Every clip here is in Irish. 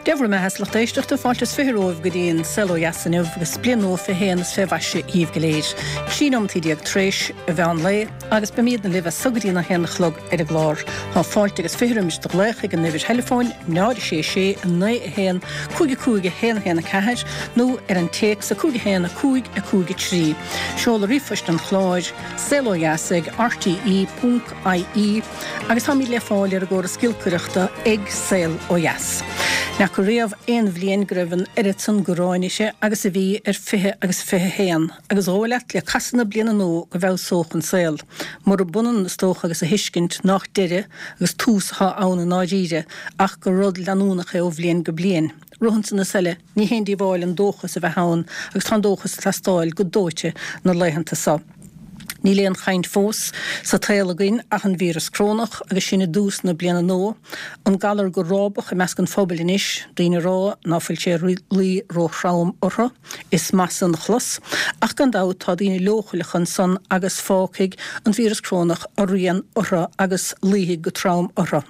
Dé bhur mbeatha a lucht éisteachta, fáilte is 20 romhaibh go dtí an Saol Ó Dheas inniu agus bliain nua 21 is fé mhaise dhíbh go léir. 13 nóimeataí tar éis an mheán lae agus beimídne libh as so go dtí an 1 a chlog ar an gclár. Tá fáilte agus 20 roimis do ghlaoch ag an uimhir theileafóin 0 6 6 9 1 5 5 1 1 4 nó ar an téacs 5 1 5 5 3. Seoladh ríomhphoist an chláir, saolodheas ag rte ponc ie. Agus táimid le fáil ar an gcóras giolcaireachta ag Saol Ó Dheas. N'fheaca riamh aon bhliain go raibh an oiread san gráin uirthi agus a bhí ar 20 agus 21, agus dhóigh leat le casadh na bliana nua go bhfeabhsódh an saol. Murab ionann is dócha agus a thuiscint nách deireadh agus tús athá ann i ndáiríre ach gur rud leanúnach é ó bhliain go bliain. Romhan san is eile, ní haon díobháil an dóchas a bheith ann agus tá an dóchas ag teastáil go dóite na laethanta so. Níl aon chaint fós sa tsaol againn ach an víreas crónach agus sinn i dtús na bliana nua, an galar go rábach i measc an phobail anois, daoine ag rá ná fuil sé ag luí róthrom orthu. Is maith san a chlos, ach gan dabht tá daoine leochaileacha ansan agus fágfaidh an víreas crónach a rian orthu agus luífidh go trom orthu.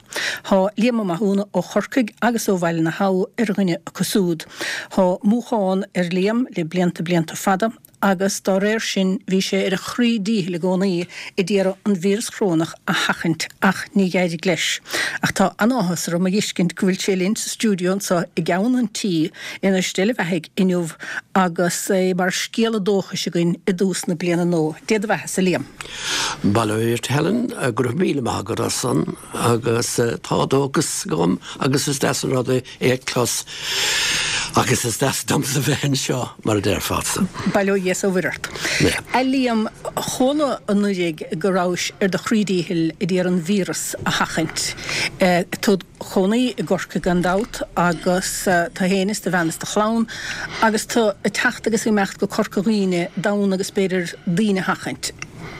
Tá Liam Ó Mathúna ó Chorcaigh agus ó Bhaile na hAbha ar dhuine acu súd. Tá múchán ar Liam le blianta blianta fada, agus dá réir sin bhí sé ar a chroí díchill i gcónaí a d'iarraidh an víreas chrónach a sheachaint ach ní d'éirigh leis. Ach tá an-áthas orm a fheiscint go bhfuil sé linn sa stiúideo anseo i gceann an tí in Steall a Bheathaigh inniu agus é mar scéala dóchais againn i dtús na bliana nua. Dé do bheathasa, a Liam. Bail ó Dhia ort Helen, go raibh míle maith agat as san agus tá dóchas agam agus is deas an rud é é a chlos agus is deas domsa bheith anseo, mar a déarfása. Bail ó Dhia is ó Mhuire ort. A Liam, chuala anuraidh go rabhais ar do chroí díchill ag iarraidh an víreas a sheachaint. Tú id chónaí i gCorcaigh gan dabht agus tú fhéin is do bhean is do chlann agus tú ag teacht agus ag imeacht go Corca Dhuibhne d'fhonn agus b'fhéidir daoine a sheachaint.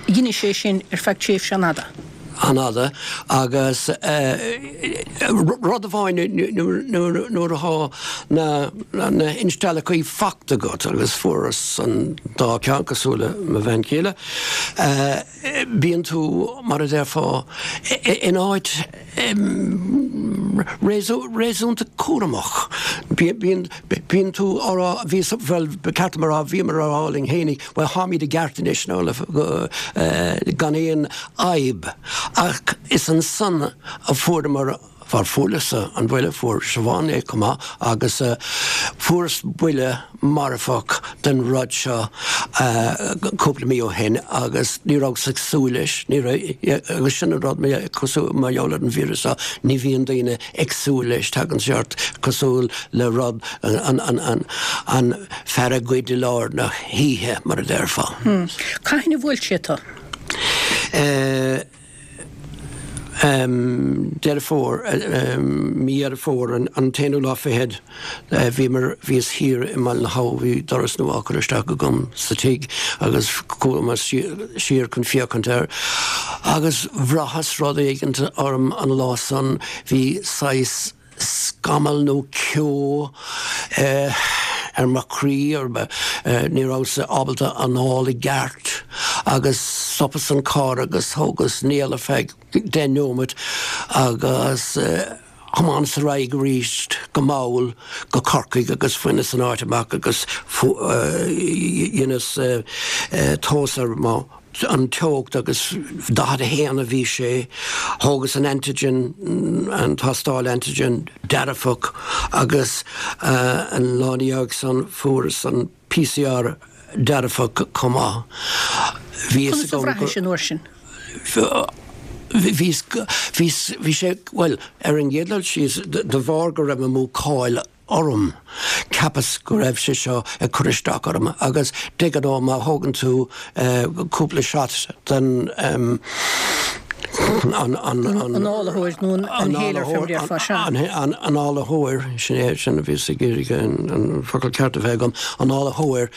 Dheinis é sin ar feadh tréimhse an-fhada. an-fhada agus rud amháin nuair atá na hinsteallachaí fachta agat agus fuaireas an dá cheann cosúil le mo bhean chéile, bíonn tú mar a déarfá in áit réasúnta cúramach. Bíonn tú á rá, bhíos, bhuel ba cheart dom a rá, bhíomar á rá linn fhéinig, bhuel táimid i gceart anois nó gan aon fhadhb. Ach is ansan a fuaireamar, bhuel fuaireas-sa an buille, fuair Siobhán é chomh maith agus fuaireas buille marfach den rud seo cúpla mí ó shin agus ní rabhas ag súil leis, ní raibh, agus sin an rud cosúil, mar gheall ar an víreas seo, ní bhíonn daoine ag súil leis, tagann sé ort cosúil le rud, an, an, an, an fear a ghoid i lár na hoíche, mar a déarfá. Cathain a bhuail sé tú? Deireadh Fómhair, mí Dheireadh Fómhair, an t-aonú lá fichead, bhíomar, bhíos thiar i mBaile na hAbha, bhí doras nua á chur isteach agam sa tigh agus chuamar siar chun féachaint air agus bhraitheas rud éigint orm an lá san, bhí saghas, scamall nó ceo ar mo chroí, ní rabhas ábalta anáil i gceart agus stopas an carr agus thógas néal ar feadh 10 neomat agus thiomáineas ar aghaidh arís go mall go Corcaigh agus bhaineas an áit amach agus dheineas tomhas ar mo an teocht agus 41 a bhí sé. Thógas an antigen, an tástáil antigen, dearfach agus an lá ina dhiaidh san fuaireas an PCR dearfach chomh maith. Bhí fhios agam gur. Conas a bhraithis an uair sin? Bhí, bhí, bhí sé, bhuel, ar an gcéad dul síos, de bharr go raibh an mhúcáil orm. Cheapas go raibh sé seo ag cur isteach orm agus de ghnáth má thógann tú cúpla shot den an Análaitheoir nó an inhaler fé mar a déarfá, sea. An análaitheoir, sin é, sin a bhíos ag iarraidh an focal ceart a bheith agam, análaitheoir,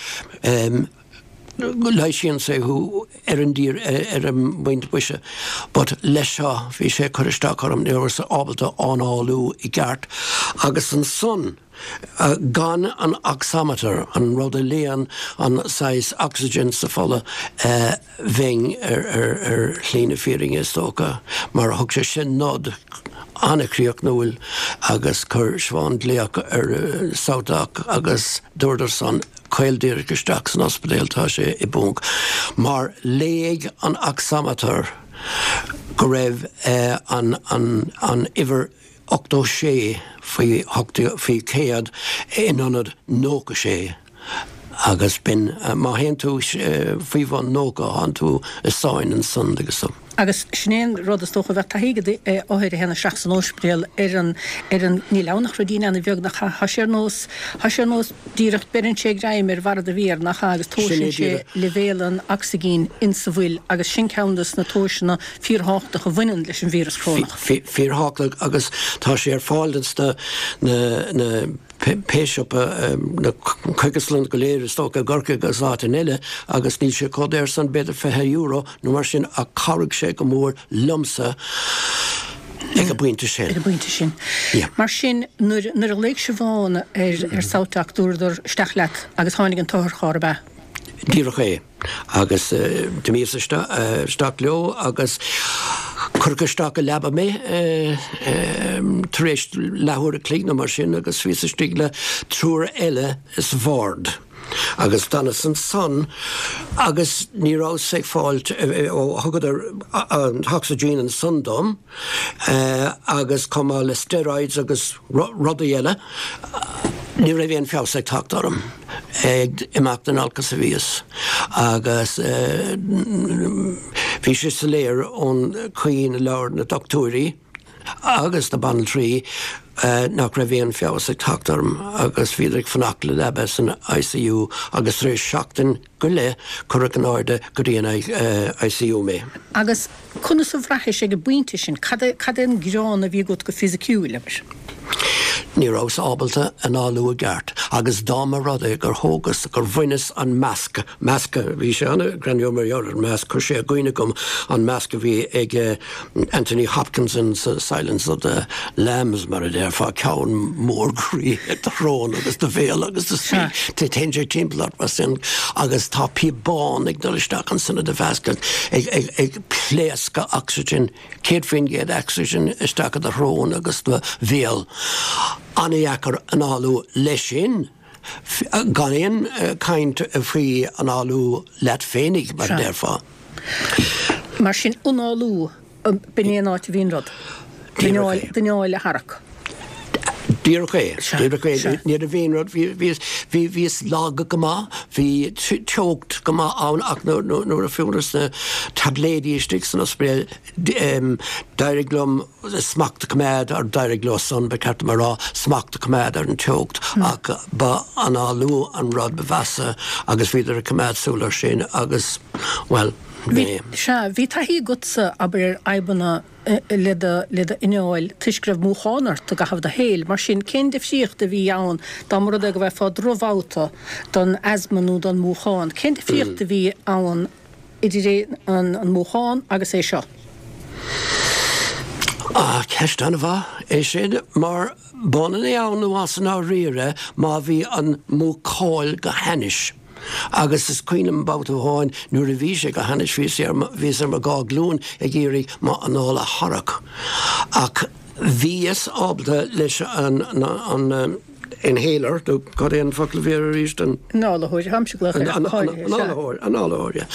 leighisíonn sé thú ar an dtír ar an bpointe boise but leis seo bhí sé ag cur isteach orm, ní rabhas ábalta análú i gceart agus ansan gan an oximeter, an rud a léann an saghas oxygen sa fola, bheinn ar ar shlí na fírinne is dócha mar thug sé sin nod. an-chríochnúil agus chuir Siobhán glaoch ar SouthDoc agus dúradar san caol díreach isteach san ospidéal, tá sé i bponc. Mar léigh an oximeter go raibh an an uimhir 86 faoi faoi 100 in ionad 96 agus b'in, má théann tú faoi bhun 90 tánn tú i sáinn ansan agus. Agus sin é an rud is dócha a bheadh taithí ag othair a théann isteach san óispidéal ar an, ar an, níl ann ach ruidín ana bheag nach ea, tá sé ar nós, tá sé ar nós díreach beireann sé greim ar bharra do mhéar nach ea agus tomhaiseann sé leibhéal an ocsaigin insa bhfuil agus sin ceann des na tomhaiseanna fíorthábhachtach a bhaineann leis an víreas corónach. Fíorthábhachtach agus tá sé ar fáil ins na, na, na. pé siopa, na cógaslanna go léir is dócha i gCorcaigh agus áiteanna eile agus níl sé chomh daor san, b'fhéidir €20 nó mar sin ach chabhraigh sé go mór liomsa ag an bpointe sin. Ag an bpointe sin. Yeah. Mar sin, nuair, nuair a ghlaoigh Siobhán ar, ar SouthDoc dúradar isteach leat agus tháinig an t-otharcharr, ab ea? Díreach é. Agus d'imíos isteach leo agus cuireadh isteach i leaba mé tar éis leathuair a chloig nó mar sin agus bhíos istigh le triúr eile sa bhord. Agus d'fhanas ansan agus ní rabhas ag fáilt, ó thugadar an t-ocsaigin ansan dom agus chomh maith le steroids agus rudaí eile, ní raibh aon feabhas ag teacht orm. Ag imeacht in olcas a bhíos agus bhí sé soiléir ón chaoi ina labhair na dochtúirí agus na banaltraí nach raibh aon feabhas ag teacht orm agus bhíodar ag fanacht le leaba san ICU agus tar éis seachtain go leith cuireadh in airde go dtí an ICU mé. Agus Conas a bhraithis ag an bpointe sin? Cad é, cad é an gearán a bhí agat go fisiciúil, abair? Ní rabhas ábalta análú i gceart agus dá mba rud é gur thógas, gur bhaineas an masc, masc, bhí sé an-ghreannmhar mar gheall ar an masc, chuir sé i gcuimhne dhom an masc a bhí ag Anthony Hopkins in Silence of the Lambs, mar a déarfá, ceann mór groí ag do shrón agus do bhéal agus do téann sé timpeall ort mar sin agus tá píobán ag dul isteach ansan i do mheascán ag pléascadh ocsaigin, 100% ocsaigin isteach i do shrón agus do bhéal. An-dheacair análú leis sin, gan aon chaint faoi análú leat féinig, mar a déarfá. Mar sin, análú. B'in é an áit a bhí an rud. D'anáil a tharrac. Díreach é. Díreach é. Ní raibh aon rud, bhíos lag go maith, bhí teocht go maith ann ach nuair a fuaireas na taibléidí istigh san ospidéal d'éirigh liom smacht a choimeád, or d'éirigh leo san, ba cheart dom a rá, smacht a choimeád ar an teocht ach ba análú an rud ba mheasa agus bhíodar ag coimeád súil air sin agus, bhuel, Bhí, sea, bhí taithí agatsa, abair, ar fhadhbanna le do, le d'anáil toisc go raibh múchán ort i gcaitheamh do shaoil. Mar sin, cén difríocht a bhí ann dá mba rud é go bhfaighfeá drochbhabhta don asma nó don mhúchán? Cén difríocht a bhí ann idir an, an múchán agus é seo? Ah, ceist an-mhaith é sin, mar b'ionann é ann nó as i ndáiríre má bhí an mhúcáil go hainnis. Agus is cuimhin liom babhta amháin nuair a bhí sé go hainnis, bhíos ar mo, bhíos ar mo dhá ghlúin ag iarraidh m'anáil a tharrac. Ach bhíos ábalta leis an, an inhaler, nó cad é an focal a bhí air arís, an. Análaitheoir, táimse ag glaoch air ach go háirithe, sea. Análaitheoir, análaitheoir, yeah.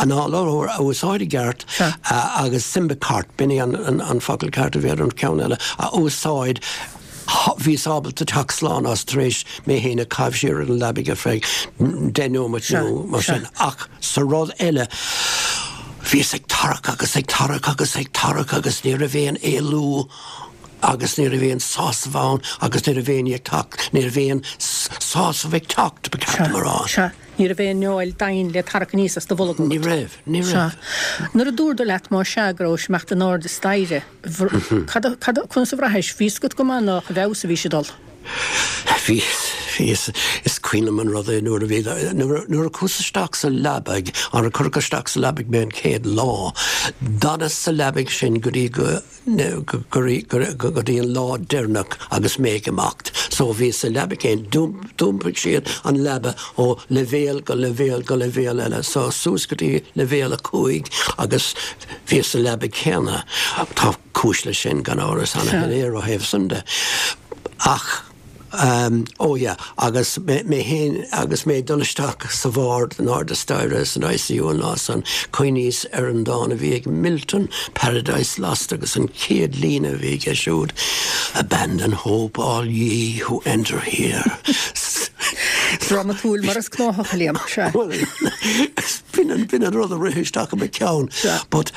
Análaitheoir a úsáid i gceart agus Symbicort, b'in é an, an focal ceart a bhí ar an cheann eile, a úsáid Bhíos ábalta teacht slán as tar éis mé féin a chaitheamh siar ar an leabaidh ar feadh 10 nóimeat nó mar sin. Ach sa rud eile, bhíos ag tarrac agus ag tarrac agus ag tarrac agus ní raibh aon éalú agus ní raibh aon sásamh ann agus ní raibh aon ní ag teacht, ní raibh aon sásamh ag teacht, ba cheart dom a rá. Sea, ní raibh aon fheoil daingean le tarrac aníos as do bholg agat. Ní raibh, ní raibh. Sea. Nuair a dúradar leat, más ea, go rabhais ag imeacht in airde staighre, Cad a, cad a, conas a bhraithis? Bhí fhios agat go maith nách i bhfeabhas a bhí sé ag dul. Bhí, bhí, is cuimhin liom an rud é nuair a bhí, nuair a, nuair a chuas isteach sa leabaidh, nuair a cuireadh isteach sa leabaidh mé an chéad lá, d'fhanas sa leabaidh sin go dtí go, go, go, go, go dtí an lá deireanach agus mé ag imeacht. So bhíos sa leabaidh céanna, d'iompaigh siad an leaba ó leibhéal go leibhéal go leibhéal eile, so suas go dtí leibhéal 5 agus bhíos sa leabaidh céanna. Tá. cúis leis sin, gan amhras, ana-shoiléir ó thaobh san de. Ach, oh yeah, agus mé féin, agus mé ag dul isteach sa bhord in airde staighre san ICU an lá san, chuimhníos ar an dán a bhí ag Milton, Paradise Lost, agus an chéad líne a bhí aige siúd, Abandon hope all ye who enter here. Drámatúil mar is gnáthach, a Liam, sea. Bhuel, b'in an, b'in an rud a rith isteach i mo cheann. Sea. But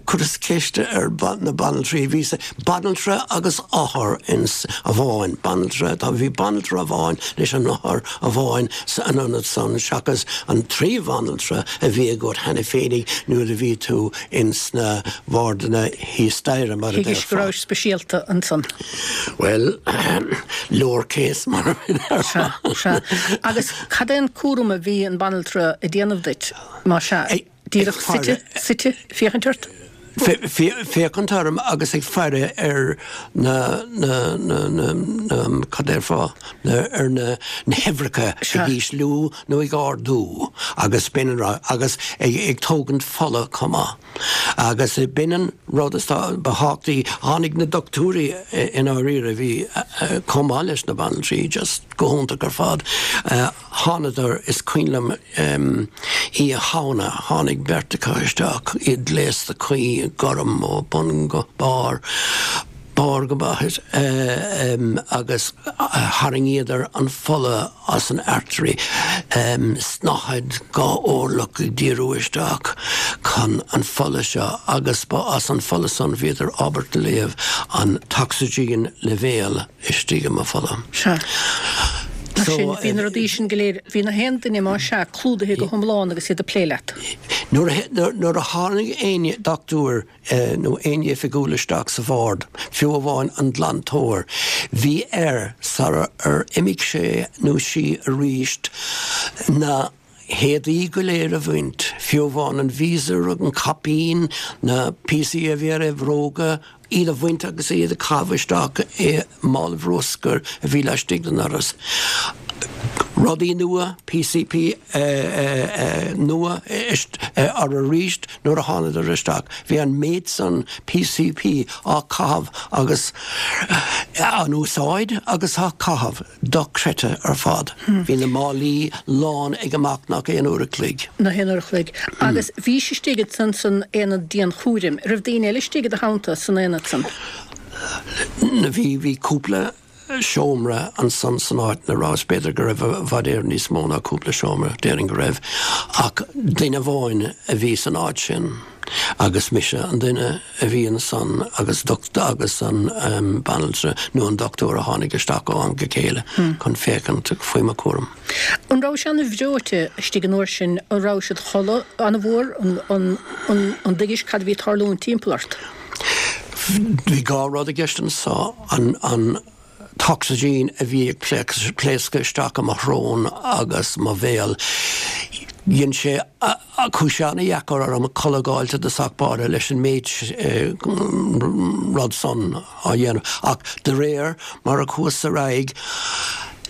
chuireas ceist ar na banaltraí, bhí banaltra agus othar ins amháin, banaltra, tá, bhí banaltra amháin leis an othar amháin san ionad san seachas an trí bhanaltra a bhí agat cheana féinig nuair a bhí tú ins na wardanna thíos staighre, mar a Thuigis go déarfá. rabhais speisialta ansan. Bhuel, lower case mar a déarfá. Sea, sea. Agus cad é an cúram a bhí an banaltra ag déanamh duit, más ea? Díreach suite, suite, féachaint ort? Féachaint orm agus ag faire ar na, na, na, na, na, cad déarfá, na, ar na, na huimhreacha ag ísliú nó ag ardú agus b'in an rud, agus ag, ag tógaint fola chomh maith. Agus b'in an rud is ba thábhachtaí, tháinig na dochtúirí i ndáiríre, a bhí chomh maith leis na banaltraí, just go hiontach ar fad. Thánadar, is cuimhin liom Oíche Shamhna, tháinig beirt acu isteach, iad gléasta cuí i ngorm ó bun go barr, barr go baithis, agus tharraingíodar an fola as an artery, snáthaid dhá orlach ag díriú isteach chun an fola seo agus ba as an fola san bhíodar ábalta léamh an t-ocsaigin leibhéal. istigh i mo pholla. Sea. Mar sin, bhí na rudaí sin go léir, bhí na haon duine, más ea, clúdaithe go hiomlán agus iad ag plé leat. Nuair a tháinig aon dochtúir nó aon oifigiúil isteach sa bhord, fiú amháin an glantóir, bhí air, sara ar imigh sé nó sí aríst, na héadaí go léir a bhaint, fiú amháin an visor, an caipín, na píosaí a bhí ar a bhróga, iad a bhaint agus iad a chaitheamh isteach i mála bruscair a bhí laistigh den doras. Rudaí nua, PPE nua orthu arís nuair a thánadar isteach. Bhí an méid san PPE á chaitheamh agus á n-úsáid agus á caitheamh. Dochreidte ar fad. Bhí na málaí lán ag amach nach aon uair a chloig. Nach aon uair a chloig. Agus bhís istigh ansan san aonad dianchúraim. Raibh daoine eile istigh i do theannta san aonad san? Bhí, bhí cúpla seomra ansan san áit 'na rabhas. B'fhéidir go raibh i bhfad Éireann níos mó ná cúpla seomra, déarfainn go raibh. Ach duine amháin a bhí san áit sin agus mise an duine. a bhí ansan agus agus an banaltra nó an dochtúir a tháinig isteach ó am go chéile chun féachaint faoi mo chúram. An rabhais an-bhreoite istigh an uair sin? An rabhais id chodladh an-mhór? An dtuigis cad a bhí ag tarlúint timpeall ort? Bhí dhá rud i gceist anso, an t-ocsaigin a bhí ag pléascadh isteach i mo shrón agus mo bhéal. Dhein sé, chuaigh sé ana-dheacair orm codladh a dh'fháilt i dtosach báire leis an méid rud san á dhéanamh. Ach de réir mar a chuas ar aghaidh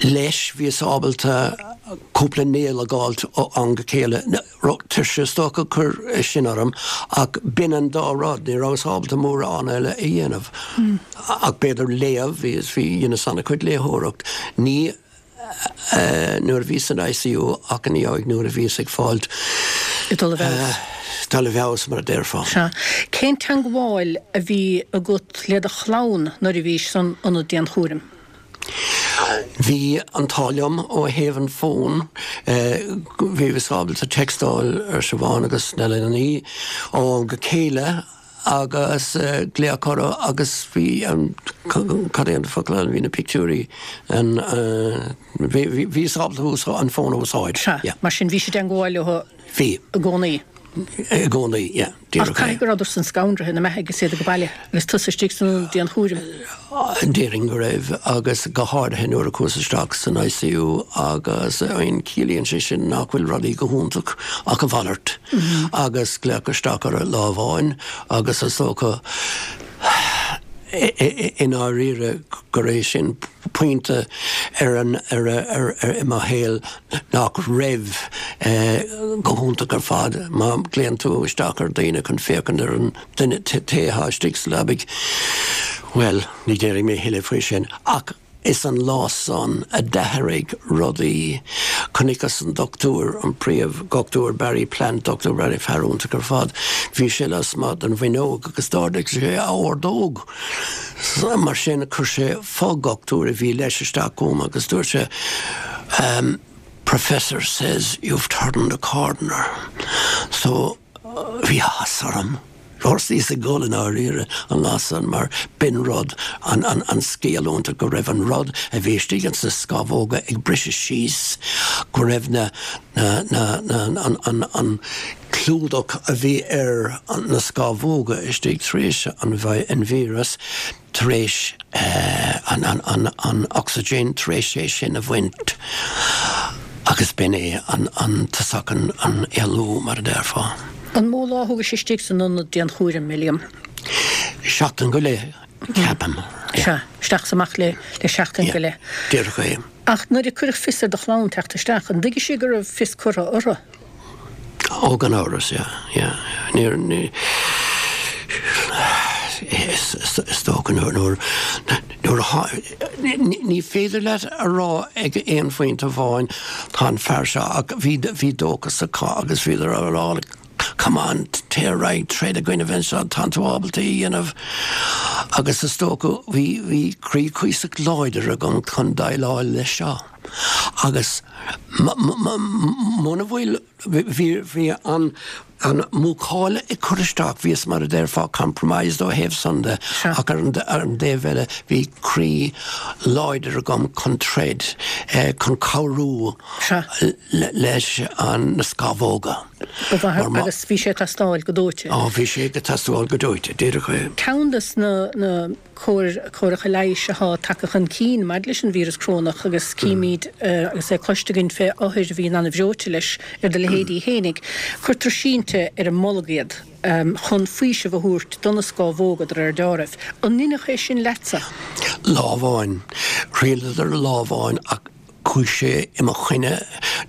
leis bhíos ábalta cúpla néal a dh'fháilt ó am go chéile. Tuirse is dócha a chuir sin orm ach b'in an dá rud, ní rabhas ábalta mórán eile a dhéanamh ach b'fhéidir léamh, bhí, bhí, dheineas an-chuid léitheoireacht, ní nuair a bhíos san ICU ach ina dhiaidh nuair a bhíos ag fáilt, Ag dul i bhfeabhas. dul i bhfeabhas mar a déarfá. Sea. Cén teangmháil a bhí agat le do chlann nuair a bhís san ionad dianchúraim? Bhí an t-ádh liom ó thaobh an fón, bhíos ábalta textáil ar Siobhán agus na leanaí ó am go chéile agus glaoch orthu agus bhí an, cad é an focal ann, bhí na pictiúirí, an, bhíos ábalta an fón a úsáid. Sea, mar sin bhís i dteangmháil leo Bhí. i gcónaí. I gcónaí, yeah. Ach caithfidh go rabhadar san scanraithe, na beathaigh, is iad ag baile agus tusa istigh san ionad dianchúraim. Déarfainn go raibh, agus go háirithe nuair a chuas isteach san ICU agus an ciallaíonn sé sin nach bhfuil rudaí go hiontach ach a mhalairt agus glaoch isteach orthu lá amháin agus is dócha i ndáiríre gur é sin. pointe ar an, ar, ar, ar, i mo shaol nach raibh go hiontach ar fad. Má ghlaonn tú isteach ar dhaoine chun féachaint ar an duine, té atá istigh sa leabaidh, bhuel, ní déarfaidh mé a thuilleadh faoi sin. Ach is an lá san a d'athraigh rudaí. Chonaiceas an dochtúir, an príomh-dhochtúir Barry Plant, Dochtúir Barry, fear iontach ar fad. Bhí sé lasmuigh den bhfuinneog agus d'ardaigh sé a ordóg. Mar sin chuir sé fo-dhochtúir a bhí leis isteach chugam agus dúirt sé, Professor says you've turned a corner. So bhí áthas orm. Thosaíos ag gol i ndáiríre an lá san mar b'in rud, an, an, an scéal iontach go raibh an rud a bhí istigh ins na scamhóga ag briseadh síos, go raibh na, na, na, na, an, an, an clúdach a bhí ar na scamhóga istigh tar éis an, an víreas, tar éis an ocsaigin, tar éis é sin a bhaint agus b'in é an tosach an éalú, mar a déarfá. An mó lá a thógais istigh san ionad dianchúraim, a Liam? Seachtain go leith, ceapaim. Sea, isteach is amach le seachtain go leith. Díreach é. Ach nuair a cuireadh fios ar do chlann teacht isteach, an dtuigfidh siad go raibh fios curtha orthu? Ó, gan amhras, yeah, yeah. Níor, ní, is dócha nuair, nuair, nuair a, ní féidir leat a rá ag aon phointe amháin tá an fear seo ach bhí, bhí dóchas acu agus bhíodar á rá come on, téir ar aghaidh, troid i gcoinnibh anseo, tánn tú ábalta é a dhéanamh. Agus is dócha bhí, bhí croí cuíosach láidir agam chun déileáil leis seo. Agus muna bhfuil, bhí, bhí an, an mhúcáil ag cur isteach, bhíos mar a déarfá compromised ó thaobh san de, ach ar an, ar an dtaobh eile bhí croí láidir agam chun troid, chun cabhrú leis an, na scamhóga. Ba mhaith, agus bhí sé ag teastáil go dóite. Á, bhí sé ag teastáil go dóite, díreach é. Ceann de na, na. córacha leighis atá tagtha chun cinn maidir leis an víreas corónach agus címid agus é cloiste againn fé othair a bhíonn an-bhreoite leis ar do leithéidí fhéinig, cuirtear sínte ar an mbolg iad chun faoiseamh a thabhairt do na scámhóga de réir deáraimh. An ndeineadh é sin leatsa? Lá amháin. Thriaileadar lá amháin ach chuaigh sé i mo choinne,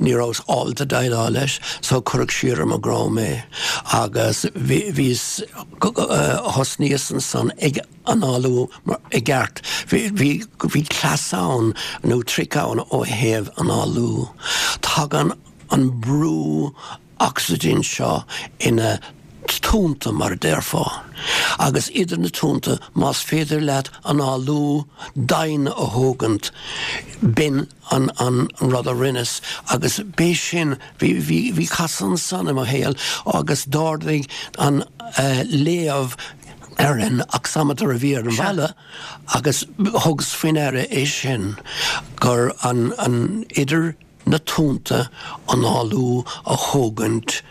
ní rabhas ábalta déileáil leis so cuireadh siar ar mo dhroim é agus bhíos, thosnaíos ansan ag análú i gceart. Bhí, bhí cleas ann nó trick ann ó thaobh análú. Tagann an brú ocsaigin seo ina tonnta mar a déarfá, agus idir na tonnta más féidir leat análú domhain a thógaint, b'in an an rud a rinneas agus b'é sin, bhí, bhí, bhí casadh ansan i mo shaol agus d'ardaigh an léamh ar an oximeter a bhí ar an bhalla agus thugas faoi ndeara é sin gur an, an, idir na tonnta análú a thógaint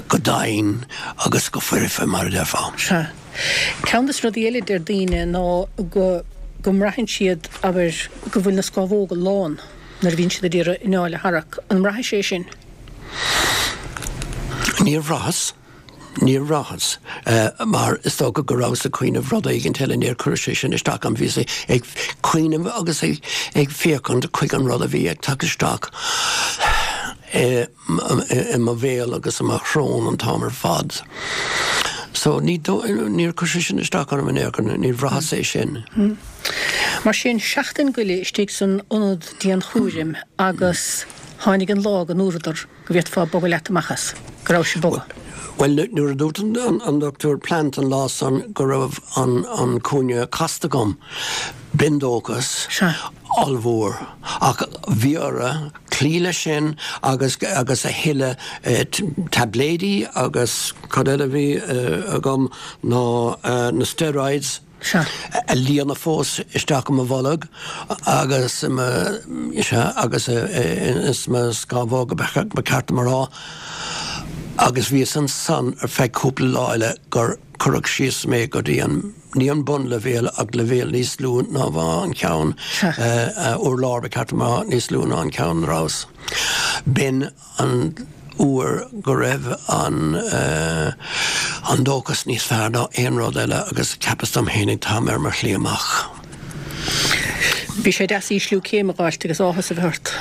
go domhain agus go foirfe, mar a déarfá. Sea. Ceann de na rudaí eile a deir daoine ná go go mbraitheann siad, abair, go bhfuil na scámhóga lán nuair a bhíonn siad ag iarraidh anáil a tharrac. An mbraithis é sin? Níor bhraitheas. Níor bhraitheas, mar is dócha go rabhas ag cuimhneamh rud éigint eile, níor chuir sé sin isteach orm, bhíos ag cuimhneamh agus ag féachaint chuig an rud a bhí ag teacht isteach i mo bhéal agus i mo shrón an t-am ar fad. So ní, níor chuir sé sin isteach orm in aon chor, níor bhraitheas é sin. Mar sin, seachtain go leith istigh san ionad dianchúraim agus tháinig an lá go ndúradar go bhféadfá bogadh leat amach as, go rabhais ag bogadh. Bhuel, nuair a dúirt an Dochtúir Plant an lá san go raibh an cúinne casta agam, b'in dóchas ollmhór. Ach bhí orthu cloí leis sin agus agus a thuilleadh taibléidí agus cad eile a bhí agam ná na steroids. Sea. a líonadh fós isteach i mo bholg agus i mo, sea, agus ins mo scamhóga, ba cheart dom a rá, agus bhíos ansan ar feadh cúpla lá eile gur cuireadh síos mé go dtí an, ní an bunleibhéal ach leibhéal níos lú ná an ceann, urlár ba cheart dom a rá, níos lú ná an ceann a rabhas. B'in. an uair go raibh an an dóchas níos fearr ná aon rud eile agus cheapas dom fhéinig táim ar mo shlí amach. Bhí sé deas ísliú céime a dh'fháilt agus áthas a bheith ort.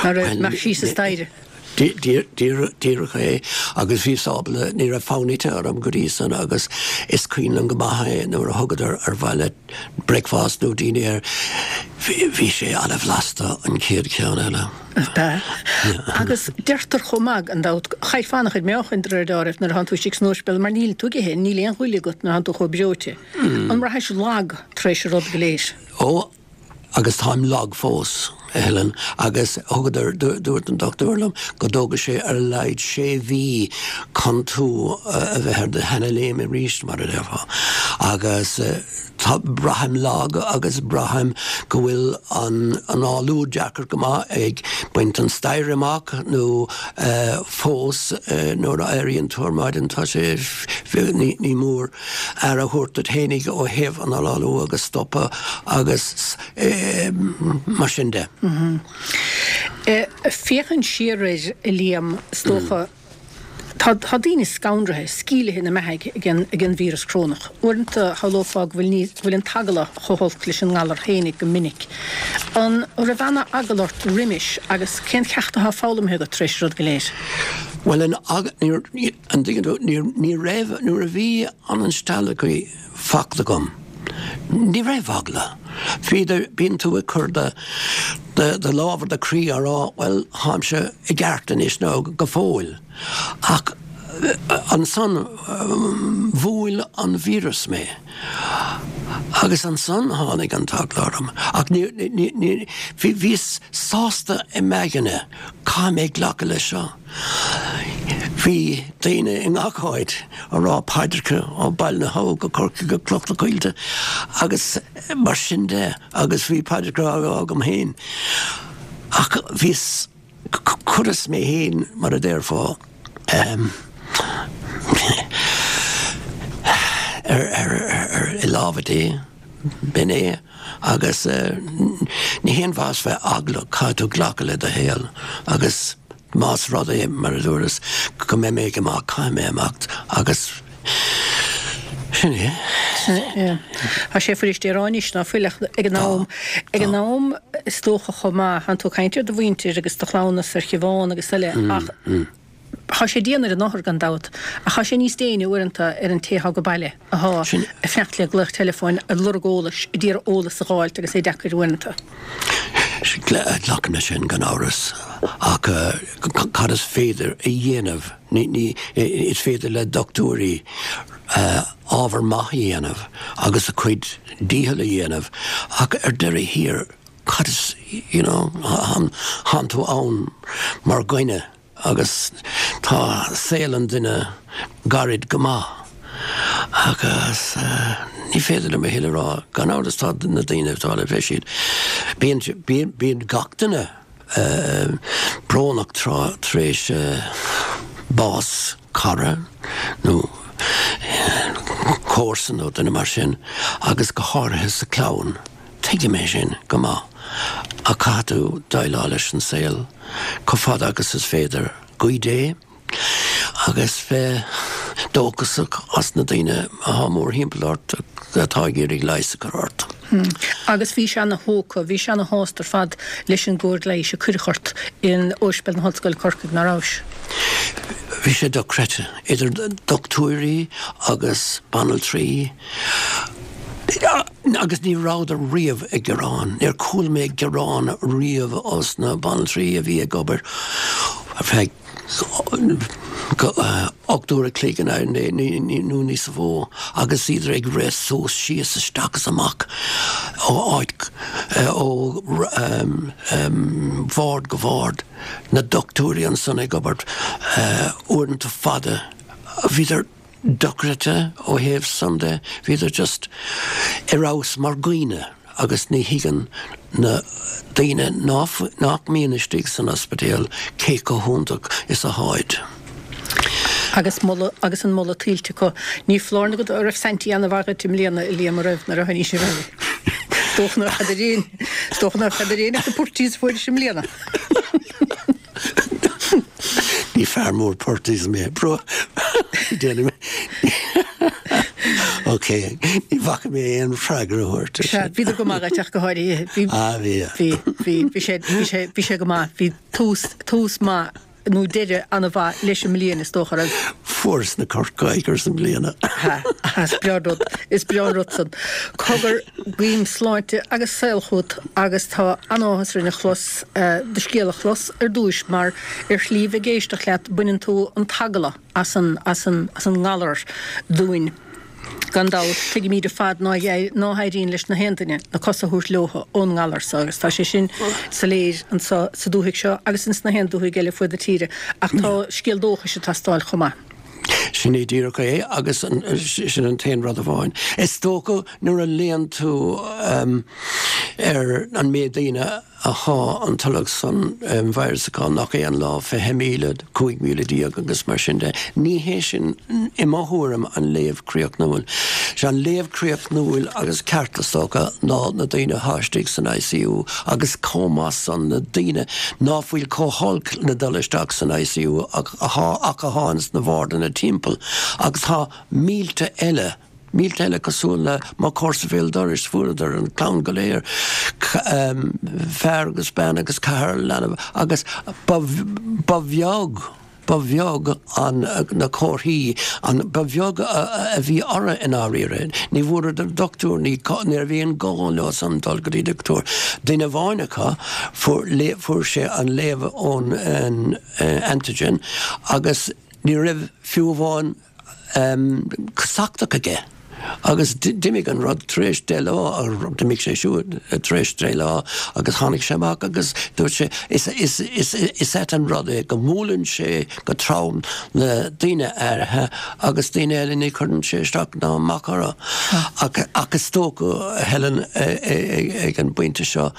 Ná raibh imeacht síos an staighre. Díreach é agus bhíos ábalta, ní raibh fonn ite orm go dtí san agus is cuimhin liom go maith é nuair a thugadar ar mhaith leat bricfeasta nó dinnéar, bhí sé ana-bhlasta an chéad cheann eile. B'ea. Agus deirtear chomh maith, gan dabht, chaillfeá an-chuid meáchain de réir dealraimh nuair atánn tú istigh san ospidéal mar níl tú ag ithe, níl aon ghoile agat nuair atánn tú chomh breoite. An mbraithis lag tar éis an rud go léir? Ó, agus táim lag fós, a Helen, agus thugadar, dúirt an dochtúir liom go dtógfaidh sé ar a laghad sé mhí chun tú a bheith ar do sheana-léim arís, mar a déarfá. Agus tá, braithim lag agus braithim go bhfuil an análú deacair go maith ag baint an staighre amach nó fós nuair a éiríonn tú ar maidin tá sé, ní mór aire a thabhairt duit fhéinig ó thaobh an análú agus stopadh agus mar sin de. Féachaint siar air, a Liam, is dócha, tá daoine scanraithe, sceimhlithe ina mbeathaidh ag an víreas corónach. Uaireanta shamhlófá go bhfuil níos, go bhfuil an t-eagla chomh holc leis an ngalar fhéinig go minic. An raibh ana-eagla ort roimis agus cén ceacht atá foghlamtha agat tar éis an rud go léir? Bhuel, an eagla, níor, An dtuigeann tú, ní raibh, nuair a bhí an instealladh faighte agam, ní raibh eagla. Bhíodar, bíonn tú ag cur do, do lámh ar do chroí á rá, bhuel, táimse i gceart anois nó go fóill. Ach ansan bhuail an víreas mé agus ansan tháinig an t-eagla orm. Ach ní, ní, ní, bhí, bhíos sásta i m'aigne, caithfidh mé glacadh leis seo. Bhí daoine i ngach áit ag rá paidreacha ó Baile na hAbha go Corcaigh go Cloich na Coillte agus mar sin de agus bhí paidreacha á rá agam féin ach bhíos, chuireas mé féin mar a déarfá ar, ar, ar, i lámha Dé, b'in é agus ní haon mhaitheas bheith eaglach, caithfidh tú glacadh le do shaol agus. Más rud é, mar a dúras, go mbeidh mé ag imeacht, caithfidh mé imeacht agus sin é. Sea. Tá sé fuirist é a rá anois ná fuil ach ag an am, ag an am is dócha chomh maith, tánn tú ag caint ar do mhuintir agus do chleamhnas ar Shiobhán agus eile ach tá sé dian ar an othar gan dabht ach tá sé níos déine uaireanta ar an té atá go baile atá ag fanacht le glaoch teileafóin, ag lorg eolais, ag iarraidh eolas a dh'fháilt agus é deacair uaireanta. Glacaim leis sin gan amhras, ach cad is féidir a dhéanamh? Is féidir le dochtúirí ábhar maith a dhéanamh agus a cuid dícheall a dhéanamh, ach ar deireadh thiar, cad is, you know, tánn tú ann mar dhuine. Agus tá saol an duine gairid go maith agus ní féidir liom a thuilleadh a rá. Gan amhras tá na daoine atá le bheith siad, bíonn, bíonn, bíonn gach duine brónach tráth tar éis bás cara nó comharsan nó duine mar sin agus go háirithe sa chlann. Tuigim é sin go maith ach caithfidh tú déileáil leis an saol chomh fada agus is féidir. Guí Dé agus bheith dóchasach as na daoine atá mórthimpeall ort atá ag iarraidh leigheas a chur ort. Agus bhís ana-thógtha, bhís ana-shásta ar fad leis an gcóir leighis a cuireadh ort in Ospidéal na hOllscoile Corcaigh, ná rabhais? Bhí sé dochreidte, idir dochtúirí agus banaltraí. Agus ní rabhadar riamh ag gearán. Níor chuala mé gearán riamh ós na banaltraí a bhí ag obair ar feadh 8 uair a chloig nó níos mó agus iad ag rith suas, síos, isteach is amach ó áit, ó bhord go bord. Na dochtúirí ansan ag obair uaireanta fada. Bhíodar. dochreidte ó thaobh san de, bhíodar just ar fheabhas mar dhaoine agus ní thuigeann na daoine nach mbíonn istigh san ospidéal cé chomh hiontach is atháid. Agus moladh agus an moladh tuillte acu. Ní foláir nó go raibh Saintí ana-mhaith dhuit i mbliana, a Liam, an raibh, nuair a tháinig sibh abhaile? Is dócha nár cheadair aon, is dócha nár cheadair aon ach na purties a fuairis i mbliana. Ní fear mór purties mé, bro. Déanaim. Ok, ní bhacfaidh mé aon freagra a thabhairt ar sin. Bhíodar go maith dhuit ach go háirithe. Bhí, Ah, bhí. bhí, bhí, bhí sé, bhí sé, bhí sé go maith. Bhí tús, tús maith nó deireadh an-mhaith leis an mbliain is dócha, raibh? Fuaireas na Corcaígh ar son bliana. Ha, is breá an rud, is breá an rud san. Cogar, guím sláinte agus saol chugat agus tá an-áthas orainn a chlos, do scéal a chlos ar dtúis mar ar shlí bheith ag éisteacht leat baineann tú an t-eagla as an, as an, as an ngalar dúinn. Gan dabht, tuigimíd ar fad ná héiríonn leis na haon duine na cosa a thabhairt leotha ón ngalar so agus tá sé sin soiléir anso sa dúthaigh seo agus ins na haon dúthaigh eile fuaid na tíre ach tá scéal dóchais ag teastáil chomh maith. Sin é díreach é agus sin an t-aon rud amháin. Is dócha nuair a léann tú ar an méid daoine athá an tolg san virus acu nach é an lá, 20,000, 15,000 agus mar sin de. Ní hé sin, i mo thuairim, an léamh críochnúil. Sé an léamh críochnúil agus ceart, is dócha, ná na daoine athá istigh san ICU agus chomh maith san na daoine ná fuil chomh holc le dul isteach san ICU ach athá ins na bhardanna timpeall agus tá mílte eile Mílte eile cosúil le mo chomharsa béal dorais, fuaireadar an clann go léir, fear agus bean agus ceathrar leanbh agus ba bheag, ba bheag an, na comharthaí, an, ba bheag a bhí orthu i ndáiríre. Ní bhfuaireadar dochtúir, ní, ní raibh aon gá leo san dul go dtí dochtúir. Duine amháin acu, fuair, fuair sé an léamh ón antigen agus ní raibh fiú amháin, casachtach aige agus d'imigh an rud tar éis deich lá, d'imigh sé siúd tar éis deich lá agus tháinig sé amach agus dúirt sé is, is, is, is ait an rud é go mbuaileann sé go trom le daoine áirithe agus daoine eile ní chuireann sé isteach ná amach orthu. Ach, ach is dócha, a Helen, ag an bpointe seo,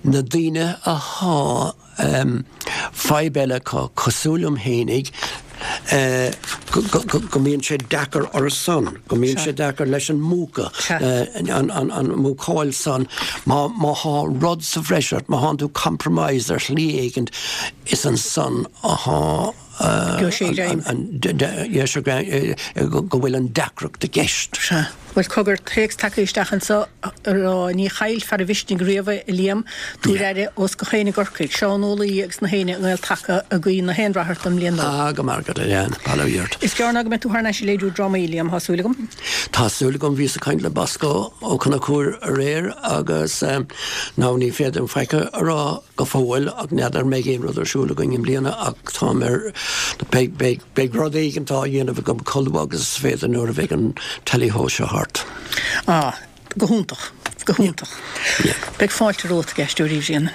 na daoine athá Fadhb eile acu, cosúil liom fhéinig, go mbíonn sé deacair orthu san, go mbíonn sé deacair leis an múcadh, an mhúcáil san, má thá rud sa bhreis ort, má thánn tú compromised ar shlí éigint, is ansan athá go bhfuil an deacracht i gceist. Sea. Bhuel, cogar, téacs tagtha isteach anseo ag rá, ní chaillfear a mhisnigh riamh é, a Liam, tabhair aire ós gach éinne i gCorcaigh, Seán Ó Laoi agus na héinne i nGael-Taca ag guí na haon rath ort don mbliain nua. Ah, go maire agat, a Leanne, bail ó Dhia ort. Is gearr ná go mbeidh tú thar n-ais ag léiriú drámaí, Liam, thá súil agam. Tá súil agam, bhíos ag caint le Bosco Ó Conchúir aréir agus now ní féidir liom faic a rá go fóill ach n'fheadar an mbeidh aon rud ar siúl againn i mbliana ach táim ar, beidh, beidh, beidh rud éigint á dhéanamh agam chomh luath agus is féidir nuair a bheidh an Tally-Ho seo thart. Ah, go hiontach, go hiontach. Yeah. Beidh fáilte romhat ag Aisteoirí Bhréanainn.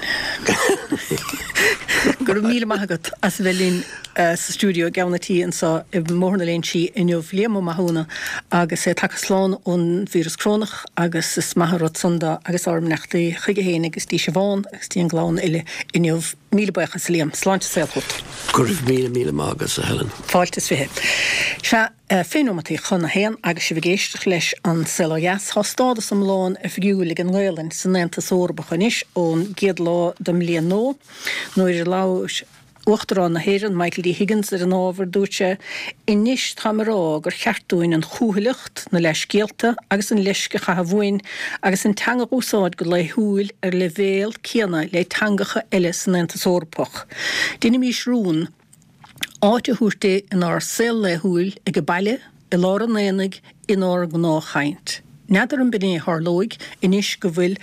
Go raibh míle maith agat as a bheith linn sa stiúideo i gceann an tí anseo i mBóthar na Léinsí inniu, Liam Ó Mathúna agus é tagtha slán ón víreas corónach agus is maith an rud san dó agus ár mbeannachtaí chuige féin agus dtí Siobhán agus dtí an gclann uile inniu. Míle buíochas a Liam. Sláinte is saol chugat. Go raibh míle míle maith agat a Helen. Fáilte is fiche. Sea, fiche nóimeataí chun a haon agus sibh ag éisteacht leis An Saol Ó Dheas. Tá stádas iomlán oifigiúil ag an nGaelainn san Aontas Eorpach anois ón gcéad lá den mbliain nua. Nuair a labhair Uachtarán na hÉireann, Michael D. Higgins, ar an ábhar, dúirt sé, Anois táim ag rá gur cheart dúinn an chúthaileacht, na leithscéalta agus an leisce a chaitheamh uainn agus an teanga a úsáid go laethúil ar leibhéal céanna le teangacha eile san Aontas Eorpach. Déanaimís rún áit a thabhairt di inár saol laethúil ag baile, i lár an aonaigh, inár ngnáthchaint. N'fheadar an b'in é a tharlóidh anois go bhfuil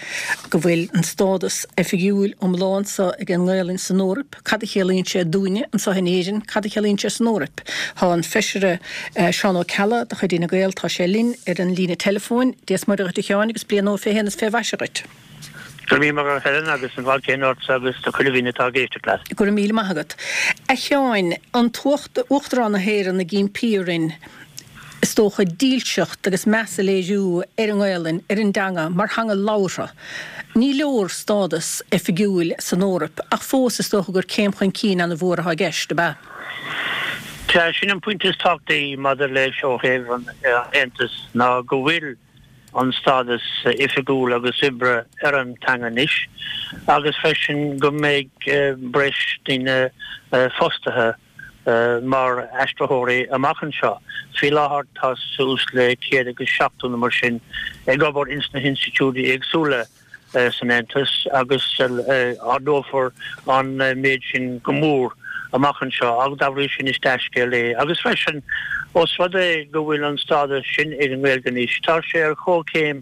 go bhfuil an stádas oifigiúil iomlán seo ag an nGaelainn san Eoraip, cad a chiallaíonn sé dúinne anseo in Éirinn, cad a chiallaíonn sé san Eoraip? Tá an Feisire Seán Ó Ceallaigh de chuid Fhine Gael, tá sé linn ar an líne teileafóin. Dia is Muire dhuit a Sheáin agus bliain nua fé shéan is fé mhaise dhuit. Go raibh míle maith agat a Helen agus an fáilte céanna ortsa agus do chuile dhuine atá ag éisteacht leat. Go raibh míle maith agat. A Sheáin, an tUachtarán na hÉireann ag impí orainn, is dócha, dílseacht agus meas a léiriú ar an nGaelainn, ar an dteanga, mar theanga labhartha. Ní leor stádas oifigiúil san Eoraip, ach fós is dócha gur céim chun cinn an-mhór atá i gceist, ab ea? Sea, sin an pointe is tábhachtaí maidir leis ó thaobh an Aontais ná go bhfuil an stádas oifigiúil agus oibre ar an teanga anois agus freisin go mbeidh breis daoine fostaithe. mar aistritheoirí amach anseo. Faoi láthair tá suas le 170 nó mar sin ag obair ins na hinstitiúidí éagsúla san Aontas agus ardófar an méid sin go mór amach anseo agus dá bhrí sin is dea-scéal é. Agus freisin, ós rud é go bhfuil an stádas sin ag an nGaeilge anois, tá sé ar chomhchéim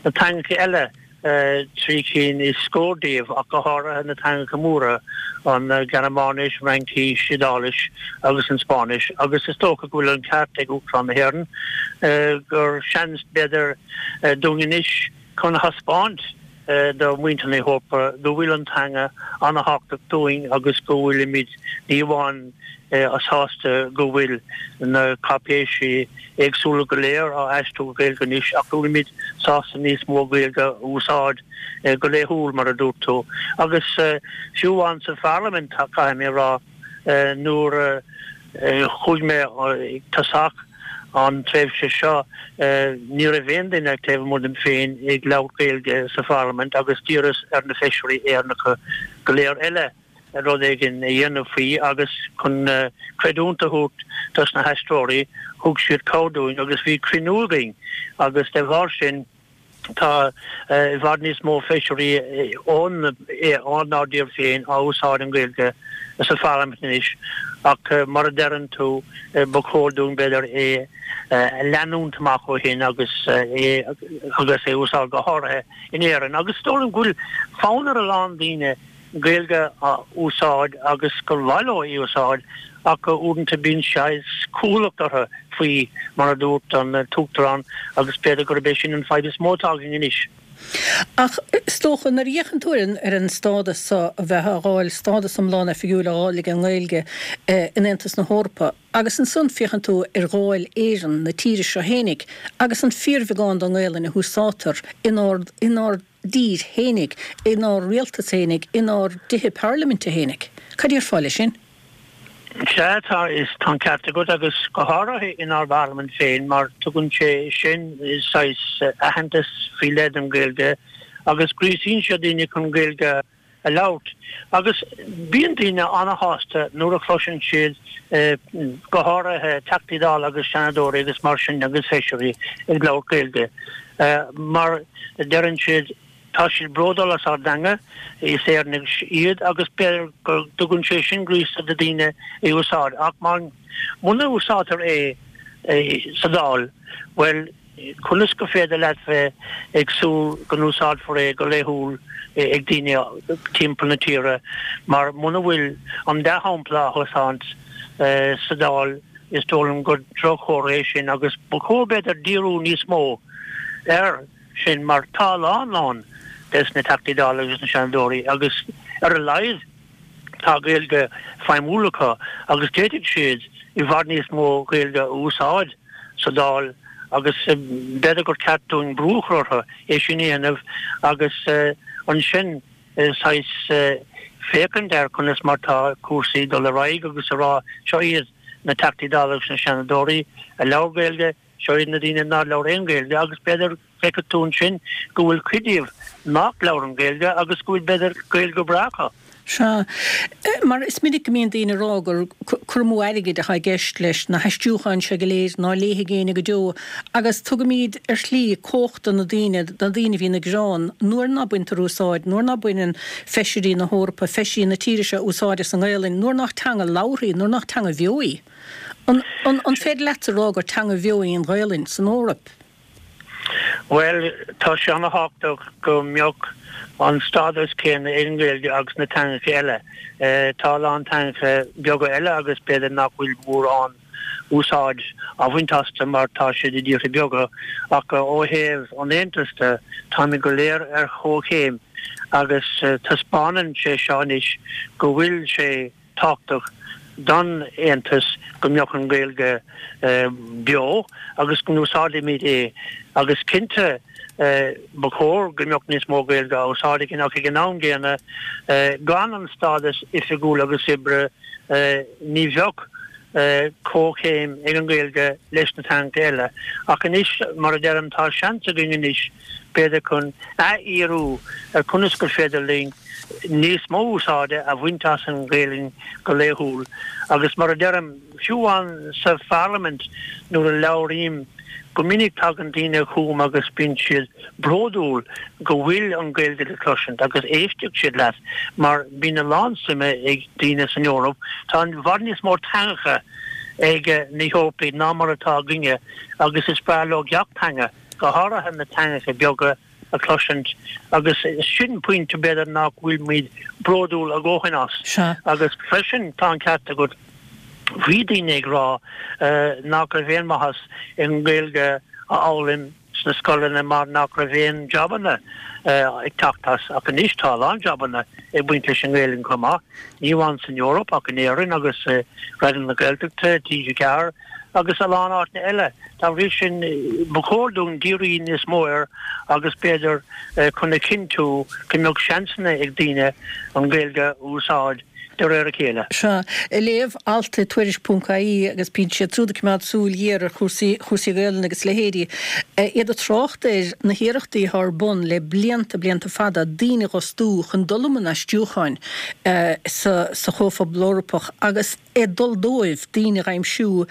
na teangacha eile, 3 cinn is scór díobh, ach go háirithe na teangacha móra, an Ghearmáinis, Fhraincis, Iodáilis agus an Spáinnis, agus is dócha go bhfuil an ceart ag Uachtarán na hÉireann gur seans, b'fhéidir, dúinn anois chun a thaispeáint do mhuintir na hEorpa go bhfuil an teanga an-thábhachtach dúinn agus go bhfuilimid ní amháin sásta go bhfuil na cáipéisí éagsúla go léir á aistriú go Gaeilge anois ach go bhfuilimid sásta níos mó Gaeilge a úsáid go laethúil, mar a dúirt tú. Agus fiú amháin sa Pharlaimint, caithfidh mé a rá, nuair a chuaigh mé ag tosach an tréimhse seo, ní raibh aon duine taobh amuigh díom féin ag labhairt Gaeilge sa Pharlaimint agus d'iarras ar na feisirí Éireannacha go léir eile rud éigin a dhéanamh faoi agus chun creidiúint a thabhairt dos na haistreoirí, thug siad cabhair dúinn agus bhí cruinniú againn agus de bharr sin tá i bhfad níos mó feisirí ónár dtír féin á úsáid an Ghaeilge sa Pharlaimint anois ach mar a deireann tú ba chóir dúinn b'fhéidir é a leanúint amach ó shin agus é agus é a úsáid go háirithe in Éirinn agus is dóigh liom go bhfuil fonn ar a lán daoine Gaeilge a úsáid agus gur mhaith leo í a úsáid ach uaireanta bíonn saghas cúthaileacht orthu faoi, mar a dúirt an tUachtarán, agus b'fhéidir gurb é sin an fadhb is mó atá againn anois. Ach is dócha, nuair a fhéachann tú ar an stádas seo a bheith á dh'fháil, stádas iomlán oifigiúil á dh'fháil ag an nGaeilge in Aontas na hEorpa, agus ansan féachann tú ar Dháil Éireann, na tíre seo fhéinig, agus an fíorbheagán den nGaelainn a húsáidtear inár, inár dtír fhéinig, inár rialtas fhéinig, inár dtithe parlaiminte fhéinig. Cad déarfá leis sin? Sea, tá, is tá an ceart agat, agus go háirithe inár bparlaimint féin, mar tugann sé sin saghas aitheantas faoi leith don Ghaeilge agus gríosaíonn sé daoine chun Gaeilge a labhairt. Agus bíonn daoine an-shásta nuair a chloiseann siad, go háirithe Teachtaí Dála agus Seanadóirí agus mar sin agus Feisirí ag labhairt Gaeilge, mar deireann siad, tá siad bródúil as ár dteanga, is Éireannaigh iad agus b'fhéidir go dtugann sé sin gríosadh do daoine é a úsáid. Ach muna úsáidtear é sa Dáil, bhuel, Conas gur féidir leat bheith ag súil go n-úsáidfear é go laethúil ag daoine timpeall na tíre mar muna bhfuil an dea-shampla á thaispeáint sa Dáil is dóigh liom gur droch-chomhartha é sin agus ba chóir b'fhéidir díriú níos mó air sin mar tá a lán lán des na Teachtaí Dála agus na Seanadóirí agus ar a laghad Tá Gaeilge feidhmiúil acu agus d'fhéadfadh siad i bhfad níos mó Gaeilge a úsáid sa Dáil agus b'fhéidir gur ceart dúinn brú a chur orthu é sin a dhéanamh agus ansin saghas féachaint ar conas mar tá cúrsaí ag dul ar aghaidh agus a rá seo iad na Teachtaí Dála agus na Seanadóirí a labhair Gaeilge, seo iad na daoine nár labhair aon Ghaeilge agus b'fhéidir Feicfidh tú ansin go bhfuil cuid díobh nach labhrann Gaeilge agus go bhfuil b'fhéidir Gaeilge breá acu. Sea. Mar is minic go mbíonn daoine ag rá gur cur amú airgid atá i gceist leis na haistriúcháin seo go léir ná léifidh éinne go deo agus tugaimid ar shlí cumhacht do na daoine, do na daoine a bhíonn ag gearán nuair ná baintear úsáid, nuair ná baineann feisirí na hEorpa, feisirí na tíre seo úsáid as an nGaelainn, nuair nach teanga labhartha í, nuair nach teanga bheo í. An, an, an féidir leatsa a rá gur teanga bheo í an Ghaelainn san Eoraip? Bhuel, tá sé ana-thábhachtach go mbeadh an stádas céanna ag an nGaeilge agus na teangacha eile. Tá a lán teangacha beaga eile agus b'fhéidir nach bhfuil mórán úsáid á bhaint astu mar tá siad i dtíortha beaga ach ó thaobh an Aontais de, táimid go léir ar chomhchéim agus taispeánann sé seo anois go bhfuil sé tábhachtach don Aontas go mbeadh an Ghaeilge beo agus go n-úsáidfimid é agus cinnte ba chóir go mbeadh níos mó Gaeilge á úsáid againn ach ag an am gcéanna gan an stádas oifigiúil agus oibre ní bheadh. Comhchéim ag an Ghaeilge leis na teangacha eile ach anois, mar a deirim, tá seans againn anois b'fhéidir chun athfhíorú ar conas gur féidir linn níos mó úsáide a bhaint as an Ghaelainn go laethúil agus mar a deirim, fiú amháin sa Pharlaimint nuair a labhraím, go minic tagann daoine chugam agus bíonn siad bródúil go bhfuil an Ghaeilge le cloisint agus éistfidh siad leat mar bíonn a lán suime ag daoine san Eoraip. Tá i bhfad níos mó teangacha ag na hEorpaigh ná mar atá againne agus is breá leo gach teanga, go háirithe na teangacha beaga. a chloisint agus sin pointe b'fhéidir nach bhfuil muid bródúil a dhóthain as. Sea. Agus freisin tá an ceart agat, bhí daoine ag rá nach raibh aon mhaitheas i nGaeilge a fhoghlaim sna scoileanna mar nach raibh aon jabanna ag teacht as ach anois tá a lán jabanna ag baint leis an nGaelainn chomh maith, ní amháin san Eoraip ach in Éirinn agus i Raidió na Gaeltachta, TG4. agus a lán áiteanna eile. Dá bhrí sin, ba chóir dúinn díriú níos mó air agus b'fhéidir chun a chinntiú go mbeadh seansanna ag daoine an Ghaeilge a úsáid de réir a chéile. Sea. Ag léamh alt i Tuairisc ponc ie agus bíonn siad siúd ag coimeád súil ghéar ar chúrsaí chúrsaí Gaelainne agus leithéidí. Iad ag trácht ar na hiarrachtaí atá ar bun le blianta, blianta fada, daoine a dh'fhostú chun dul i mbun aistriúcháin sa sa Chomhphobal Eorpach agus, ag dul dóibh daoine a dh'aimsiú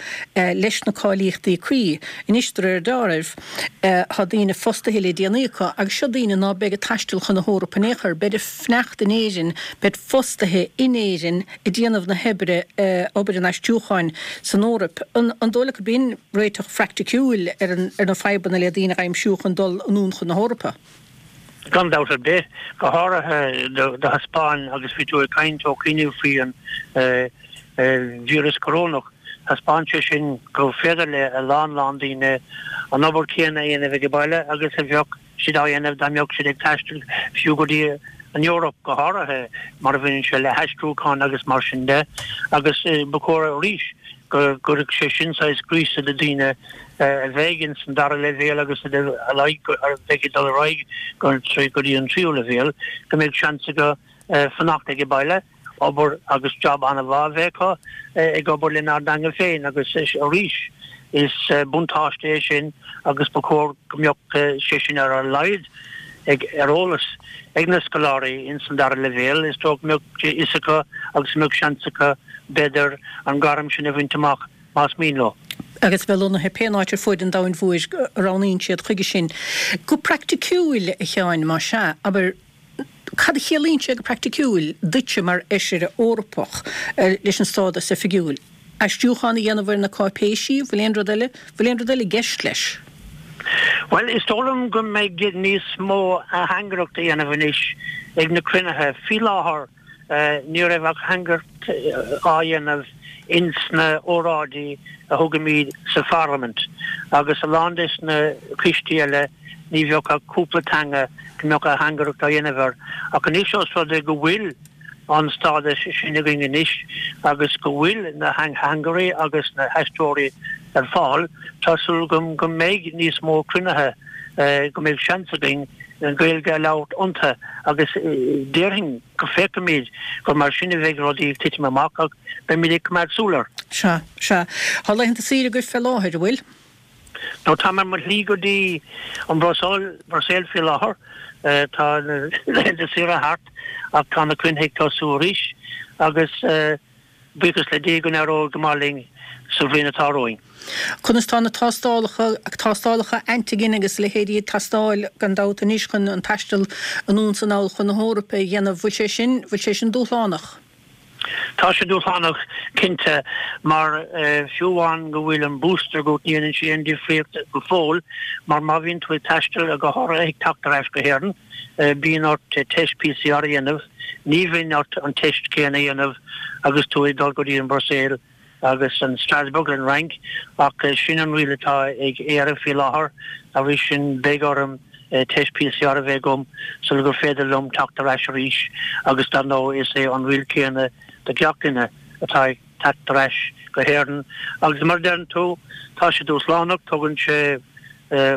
leis na cáilíochtaí cuí. Anois, de réir deáraimh, tá daoine fostaithe le déanaí acu agus seo daoine ná beidh ag taisteal chun na hEorpa in aon chor, beid ag fanacht in Éirinn, beid fostaithe in Éirinn ag déanamh na hoibre, obair an aistriúcháin san Eoraip. An dóigh leat gurb in réiteach phraicticiúil ar na fadhbanna le daoine a dh'aimsiú chun dul anonn chun na hEorpa? Gan dabht ar bith, go háirithe do thaispeáin, agus bhí tú ag caint ó chianaibh faoi an víreas corónach, thaispeáin sé sin gur féidir le a lán lán daoine an obair chéanna a dhéanamh ag baile agus a bheadh siad á dhéanamh dá mbeadh siad ag taisteal fiú go dtí an Eoraip, go háirithe mar a bhaineann sé le haistriúchán agus mar sin de. Agus ba chóir arís go gcuirfeadh sé sin saghas gríosadh do daoine a bheidh ins an dara leibhéal agus a bheidh ag dul ar aghaidh go dtí an tríú leibhéal, go mbeidh seans acu fanacht ag baile, obair agus job an-mhaith a bheith acu ag obair lenár dteanga féin agus arís is buntáiste é sin agus ba chóir go mbeadh sé sin ar a laghad ag ar eolas ag na scoláirí ins an dara leibhéal. Is dóigh go mbeadh fhios acu agus go mbeadh seans acu b'fhéidir an gairm sin a bhaint amach. más mian leo. agus a bheith lonnaithe pé áit ar fuaid an domhain mhóir a roghnaíonn siad chuige sin. Go praiticiúil, a Sheáin, más ea, abair, cad a chiallaíonn sé go praiticiúil duitse mar Fheisire Eorpach leis an stádas oifigiúil? Aistriúchán a dhéanamh ar na cáipéisí? Bhfuil aon rud eile, bhfuil aon rud eile i gceist leis? Bhuel, is dóigh liom go mbeidh níos mó ateangaireacht a dhéanamh anois ag na cruinnithe. Faoi láthair, Ní raibh ach ateangaireacht á dhéanamh ins na óráidí a thugaimid sa Pharlaimint agus a lán des na coistí eile ní bheadh ach cúpla teanga go mbeadh ateangaireacht á dhéanamh air. Ach anois os rud é go bhfuil an stádas sin againn anois agus go bhfuil na hateangairí agus na haistritheoirí ar fáil, tá súil agam go mbeidh níos mó cruinnithe, go mbeidh seans againn an Ghaeilge a labhairt iontu agus déarfainn go bhfeicfimid gur mar sin a bheidh rudaí ag titim amach ach beimid ag coimeád súil air. Sea, sea. Tá laethanta saoire agaibh fé láthair, an bhfuil? No, táim ar mo shlí go dtí an Bhruiséil, Bruiséil faoi láthair. Tá na laethanta saoire thart ach tá na cruinnithe ag tosú arís agus. Buíochas le Dia go n-éireoidh go maith linn sa bhliain atá romhainn. Conas tá na tástálacha, tástálacha antigen agus a leithéidí ag teastáil gan dabht anois chun an taisteal anonn 's anall chun na hEorpa a dhéanamh. Bhfuil sé sin, bhfuil sé sin dúshlánach? Tá sé dúshlánach cinnte mar fiú amháin go bhfuil an booster agat ní dhéanann sé aon difríocht go fóill mar má bhíonn tú ag taisteal go háirithe ag teacht ar ais go hÉirinn, Bíonn ort teist PCR a dhéanamh. Ní bhíonn ort an teist céanna a dhéanamh agus tú ag dul go dtí an Bhruiséil agus an Strasbourg an Fhrainc ach sin an riail atá ag Éire faoi láthair. Dá bhrí sin beidh orm teist PCR a bheith agam sula gur féidir liom teacht ar ais arís agus dar ndóigh is é an riail céanna do gach duine atá ag teacht ar ais go hÉirinn agus mar a deireann tú tá sé dúshlánach, tógann sé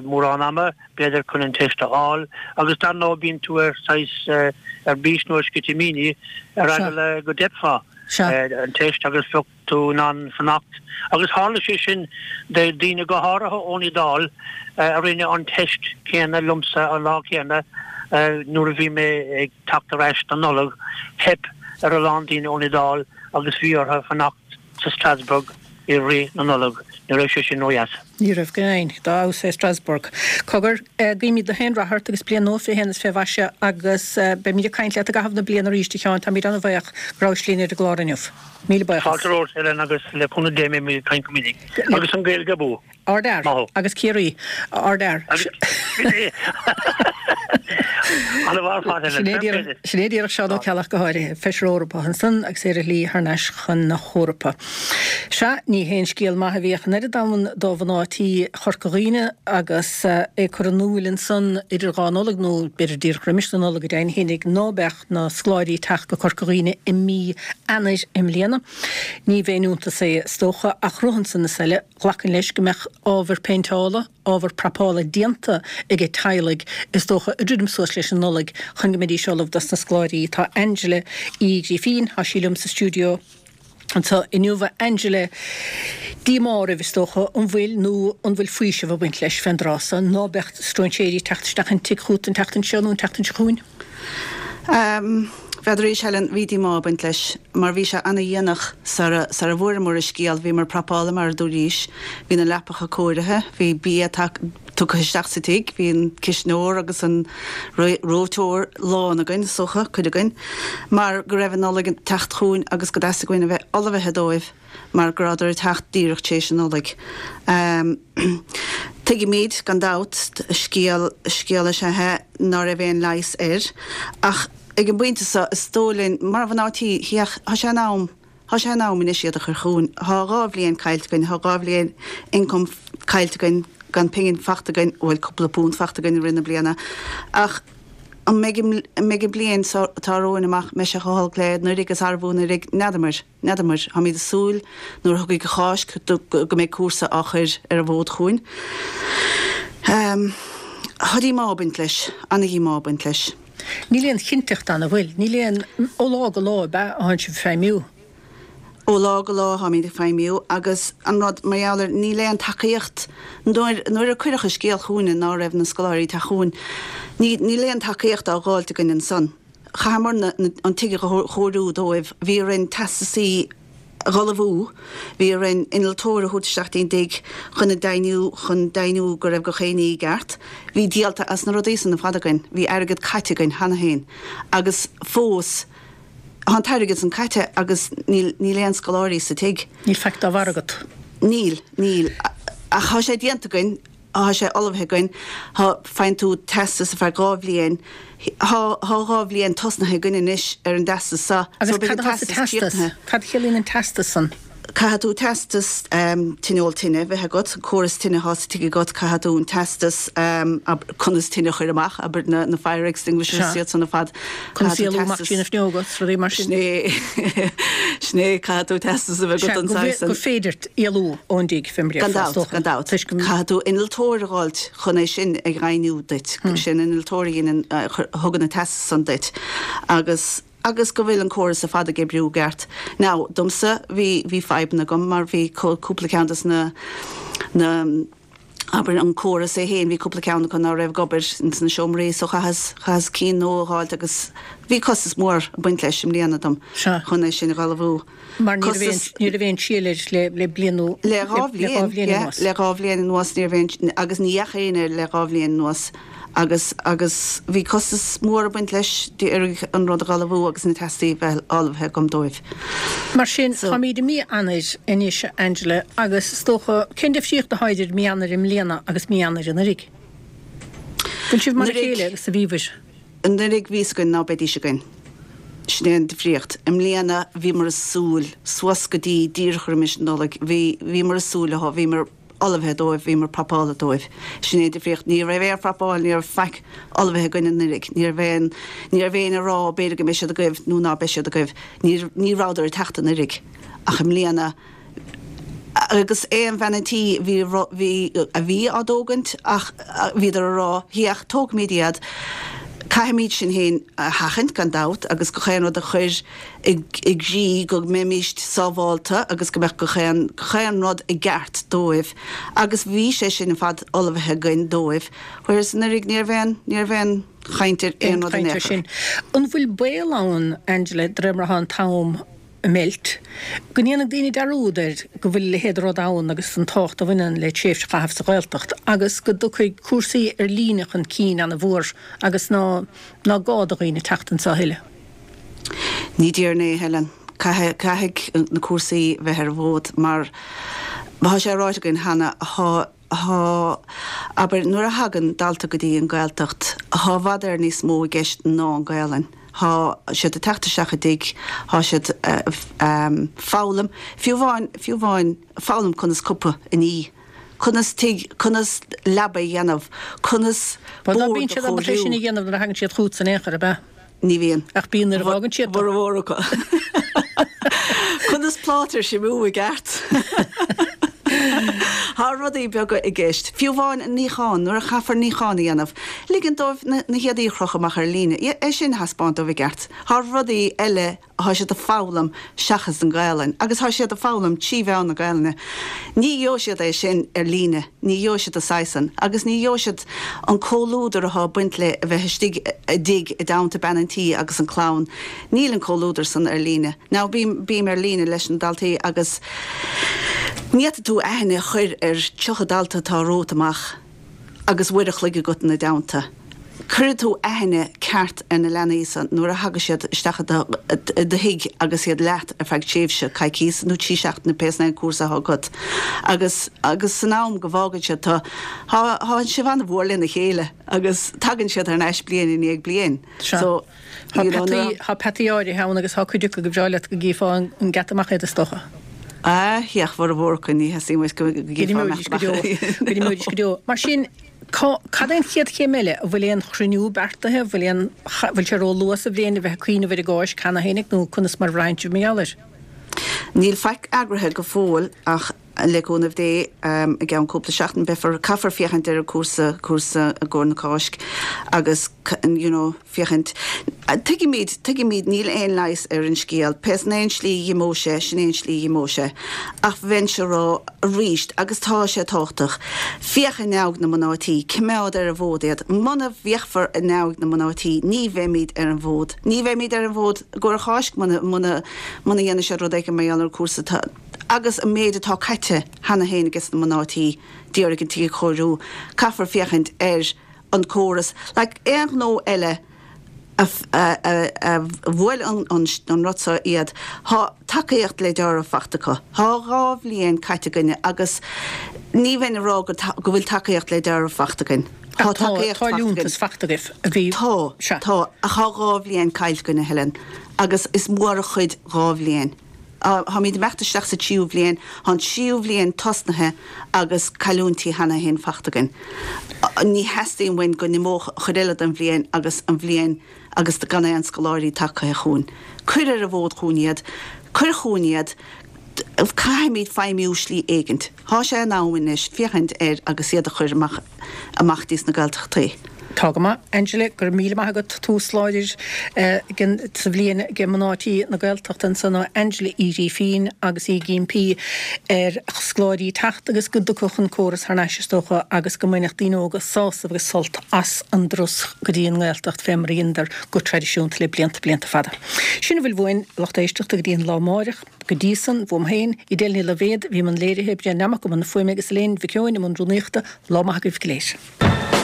mórán ama. b'fhéidir, chun an teist a fháil agus dar ndóigh bíonn tú ar saghas ar bís nó ar sceitimíní ar eagla go dteipfeá an teist agus bheadh. tú in ann fanacht. Agus tharla sé sin do daoine go háirithe ón Iodáil a rinne an teist céanna liomsa an lá céanna nuair a bhí mé ag teacht ar ais don Nollaig. Theip ar a lán daoine ón Iodáil agus bhí orthu fanacht sa Strasbourg i rith na Nollag. Ní raibh sé sin ródheas. Ní raibh, go deimhin. Dá fheabhas é Strasbourg. Cogar, guímid gach aon rath ort agus bliain nua 21 is fé mhaise agus beimid ag caint leat i gcaitheamh na bliana arís, a Sheáin. Táimid an-bhaoch go rabhais linn ar an gclár inniu. Míle buíochas. Fáilte romhat, Helen, agus le cúnamh Dé beimid ag caint go minic. Agus an Ghaeilge abú! Ardfhear. Maith thú. Agus Ciarraí. Ardfhear. Ana-mhaith ar fad, Helen. Fair play duit. Sin é díreach Seán Ó Ceallaigh go háirithe, Feisire Eorpach ansan agus é ar a shlí thar n-ais chun na hEorpa. Sea, ní haon scéal maith a bhíodh an oiread ann do mhná tí Chorca Dhuibhne agus é curtha in iúl ansan idir dhá Nollaig, nó b'fhéidir díreach roimis na Nollag go deimhin fhéinig, ná beadh na scoláirí ag teacht go Corca Dhuibhne i mí Eanáir i mbliana. Ní b'aon iontas é is dócha, ach rud ansan is eile, Ghlacfainn leis go mbeadh ábhar péinteála, ábhar prapála déanta aige teaghlaigh, is dócha, ag druidim suas leis an Nollaig chun go mbeidís ullamh dos na scoláirí. Tá Angela Uí Ghrífín, tá sí liom sa stiúideo anseo inniu. A Angela, díomá oraibh, is dócha, an bhfuil nó an bhfuil faoiseamh ag baint leis fén dtráth so, ná beadh stróinséirí ag teacht isteach an tigh chút an tseachtain seo nó an tseachtain seo chugainn? N'fheadar arís, Helen, bhí díomá ag baint leis, mar bhí sé ana-dhéanach sara, sara bhfuaireamar an scéal. Bhíomar prapála, mar a dúraís, bhí na leapacha cóirithe, bhí bia tugtha isteach sa tigh, bhí an cisneoir agus an reoiteoir lán againn, is dócha, cuid againn, mar go raibh an Nollaig ag teacht chugainn agus go dteastaigh uainn a bheith ullmhaithe dóibh. mar go rabhadar ag teacht díreach tar éis an Nollaig. Tuigimid, gan dabht, scéal, scéal is ea é ná raibh aon leigheas air, ach ag an bpointe seo, is dóigh linn, mar mhná tí, tá sé in am, tá sé in am anois iad a chur chugainn. Tá 2 bhliain caillte againn, tá 2 bhliain income caillte againn, gan pingin fachta againn, bhuel, cúpla punt fachta againn i rith na bliana, ach an mbeidh an, an mbeidh an bliain seo atá romhainn amach, mbeidh sé chomh holc le anuraidh agus arbh fhiú anuraidh, n'fheadamair. N'fheadamair. Táimid ag súil nuair a thiocfaidh an Cháisc go mbeidh cúrsa á chur ar an bhfód chugainn. Tá díomá ag baint leis, ana-dhíomá ag baint leis. Níl aon chinnteacht ann, an bhfuil? Níl aon, ó lá go lá ab ea a thánn sibh ag feidhmiú? Ó lá go lá táimid ag feidhmiú agus an rud mar gheall air, níl aon tacaíocht. Nuair, nuair a cuireadh an scéal chugainne ná raibh na scoláirí ag teacht chugainn, ní, níl aon tacaíocht á dh'fháilt againn ansan. Chaitheamar an tigh a chóiriú dóibh, bhí orainn teastasaí a dh'ullmhú, bhí orainn innealtóir a thabhairt isteach dtí'n dtigh chun a deimhniú, chun deimhniú go raibh gach aon ní i gceart. Bhí díolta as na rudaí san ar fad againn, bhí airgead caite againn cheana féin agus fós tá an t-airgead san caite agus níl, níl aon scoláirí sa tigh. Níl faic dá bharr agat. Níl, níl. Ach tá sé déanta againn. Tá sé ullmhaithe againn. Tá, faigheann tú teastas ar feadh 2 bhliain. Tá, tá 2 bhliain tosnaithe againn anois ar an dteastas seo. Agus So beidh cad an atá sa teastas teastas? críochnaithe. Cad a chiallaíonn an teastas san? Caithfidh tú teastas tine-eol tine bheith agat, an córas tine atá sa tigh agat, caithfidh tú an teastas conas tine a chur amach, abair na, na fire extinguishers Sea. iad san ar fad. Conas Caithfidh tú éalú amach teastas, trí na fuinneoga is rudaí mar sin. Sin é, sin é, caithfidh tú teastas a bheith agat don Sea, saghas san. gur féidir éalú ón dtigh fé mar Gan dabht, gan dabht. Toisc go. Caithfidh tú innealtóir a dh'fháilt chun é sin a dheimhniú duit. Sin innealtóir a dhéanann, a thugann an teastas san duit. Agus, agus go bhfuil an córas ar fad ag oibriú i gceart. Now, domsa, bhí, bhí fadhbanna agam mar bhí cúpla ceann des na, na, abair, an córas é féin, bhí cúpla ceann acu ná raibh ag obair ins na seomraí so chaitheas, chaitheas cinn nua a dh'fháilt agus bhí costas mór ag baint leis i mbliana dom chun é sin a dh'ullmhú. Mar ní raibh aon, ní raibh aon síol air le, le bliain nó, Le 2 bhliain, yeah, anuas. Le 2 bhliain anuas ní raibh aon, agus ní dheachaigh éinne air le 2 bhliain anuas agus, agus bhí costas mór ag baint leis d'iarraidh an rud a dh'ullmhú agus na teastaí bheith ullmhaithe agam dóibh. Mar sin, So. táimíd i mí Eanáir anois, a Angela, agus is dócha, cén difríocht atá idir mí Eanáir i mbliana agus mí Eanáir anuraidh? Bhfuil sibh mar a Anuraidh. chéile agus a bhíobhair? Anuraidh bhí fhios againn ná beidís againn. Sin é an difríocht. I mbliana bhíomar ag súil, suas go dtí díreach roimis an Nollaig, bhí, bhíomar ag súil leo, bhíomar ullmhaithe dóibh, bhíomar prapála dóibh. Sin é an difríocht. Ní raibh aon phrapáil, ní raibh faic ullmhaithe againn anuraidh. Ní raibh aon, ní raibh éinne ag rá b'fhéidir go mbeidh siad agaibh nó ná beidh siad agaibh. Ní, ní rabhadar ag teacht anuraidh. Ach i mbliana, agus aon bhean an tí bhí, bhí, a bhí á dtógaint ach bhíodar a rá, féach, tógfaimid iad. Caithfimid sinn féin a sheachaint, gan dabht, agus gach aon rud a chur i gcrích go mbeimíst sábhálta agus go mbeadh gach aon, gach aon rud i gceart dóibh. Agus bhí sé sin ar fad ullmhaithe againn dóibh, whereas anuraidh ní raibh aon, ní raibh aon chaint ar aon rud in aon chor. An bhfuil baol ann, Angela, de réir mar atá an t-am imeacht, go ndéanfaidh daoine dearúd air go bhfuil a leithéid de rud ann agus an tábhacht a bhaineann le tréimhse a chaitheamh sa Ghaeltacht agus go dtiocfaidh cúrsaí ar líne chun cinn ana-mhór agus ná ná gá do dhaoine teacht anseo a thuilleadh. Ní déarfainn é, a Helen. Caithfidh, caithfidh na cúrsaí bheith ar an bhfód mar tá sé ráite againn cheana, tá, Thá, abair, nuair a thagann dalta go dtí an Ghaeltacht, thá i bhfad Éireann níos mó i gceist ná an Ghaelainn. Thá siad ag teacht isteach i dtigh, thá siad foghlaim, fiú amháin, fiú amháin foghlaim conas cupa a ní, conas tigh, conas leaba a dhéanamh, conas bord a chóiriú. Bhuel, ná bíonn siad ábalta é sin a dhéanamh nuair a thagann siad chugatsa in aon chor, ab ea? Ní bhíonn. Ach bíonn nuair a fhágann siad. Formhór acu. Conas pláta a shuimiú i gceart. Tá rudaí beaga i gceist. Fiú amháin an níochán, nuair a chaithfear níochán a dhéanamh, ligean dóibh na héadaí a chrochadh amach ar líne, é sin a thaispeáint dóibh i gceart. Tá rudaí eile Thá siad ag foghlaim seachas an Ghaelainn agus thá siad ag foghlaim trí mheán na Gaelainne. Ní gheobhaidh siad é sin ar líne, ní gheobhaidh siad an saghas san agus ní gheobhaidh siad an comhluadar athá ag baint le a bheith istigh i dtigh i dteannta bean an tí agus an clann. Níl an comhluadar san ar líne. Now bím, bím ar líne leis na daltaí agus ní fhéadfaidh tú aithne a chur ar 30 dalta atá romhat amach. agus uair a chloig agat ina dteannta. Cuirfidh tú aithne ceart ar na leanaí san nuair a thagas siad isteach i do thigh agus iad leat ar feadh tréimhse coicíos nó 3 seachtaine pé san é an cúrsa athá agat. Agus agus san am go bhfágann siad tu, thá thá sibh an-mhór lena chéile agus tagann siad thar n-ais bliain i ndiaidh bliain. So. Thá peataí, thá peataí áirithe ann agus thá cuid acu gur bhreá leat go gcífeá an geata amach iad is dócha. Ah, ach formhór acu ní theastaíonn uait go gcífeá amach go deo, go n-imeoidís go deo. Mar sin, cá, cad é an chéad chéim eile? An bhfuil aon chruinniú beartaithe? An bhfuil aon, bhfuil sé ró-luath sa bhliain a bheith ag cuimhneamh ar an gCáisc cheana fhéinig nó conas mar a bhraitheann sibh mar gheall air? Níl faic eagraithe go fóill ach le cúnamh Dé, i gceann cúpla seachtain beifear, caithfear féachaint ar an cúrsa, cúrsa i gcomhair na Cáisc agus you know féachaint, tuigimid, tuigimid níl aon leigheas ar an scéal, pé san é an slí a dh'imeodh sé, sin é an slí a dh'imeodh sé. Ach bheinnse a rá arís, agus tá sé tábhachtach, féach in aghaidh na mná tí, cimeád ar an bhfód iad, muna bhféachfar in aghaidh na mná tí ní bheimid ar an bhfód, ní bheimid ar an bhfód i gcomhair Cháisc muna, muna, muna dhéanfaidh siad rud éigin mar gheall ar an cúrsa. Tá. Agus an méid atá caite cheana féin ages na mná tí d'iarraidh an tigh a chóiriú, caithfear féachaint ar an córas. Like aon ghnó eile a bhuail an rud seo iad, thá tacaíocht le deáramh fachta acu. Thá 2 bhliain caite againne agus ní bheinn a rá go bhfuil tacaíocht le deáramh fachta againn. Tá tacaíocht fachta againn. Tá liúntas fachta agaibh a bhí. Tá, tá, ach thá 2 bhliain caillte againn, a Helen, agus is mór an chuid 2 bhliain. Táimid ag imeacht isteach sa tríú bhliain. Tá an tríú bhliain tosnaithe agus cailliúintí cheana féin fachta againn. Ní theastaíonn uainn go n-imeodh chuid eile den bhliain agus an bhliain agus gan aon scoláirí tagtha chugainn. Cuir ar an bhfód chugainn iad. Cuir chugainn iad. Caithfimid feidhmiú slí éigint. Thá sé in am anois féachaint air agus iad a chur amach amach dtí sna Gaeltachtaí. Tá go maith. Angela, go raibh míle maith agat. Tús láidir sa bhliain ag mná tí na Gaeltachta ansan ó Angela Uí Ghrífín agus í ag impí ar scoláirí teacht agus go dtiocfadh an córas thar n-ais is dócha agus go mbainfeadh daoine óga sásamh agus sult as an dturas go dtí an nGaeltacht fé mar a dheineadar go traidisiúnta le blianta blianta fada. Sin a bhfuil uainn, a lucht éisteachta, go dtí an lá amáireach. Go dtí san, uaim féin, Edel Ní Loibhéad, a bhí i mbun léirithe, Brian Nammock i mbun na fuaime agus Elaine Mhic Eoin i mbun rúnaíochta, lá maith agaibh go léir.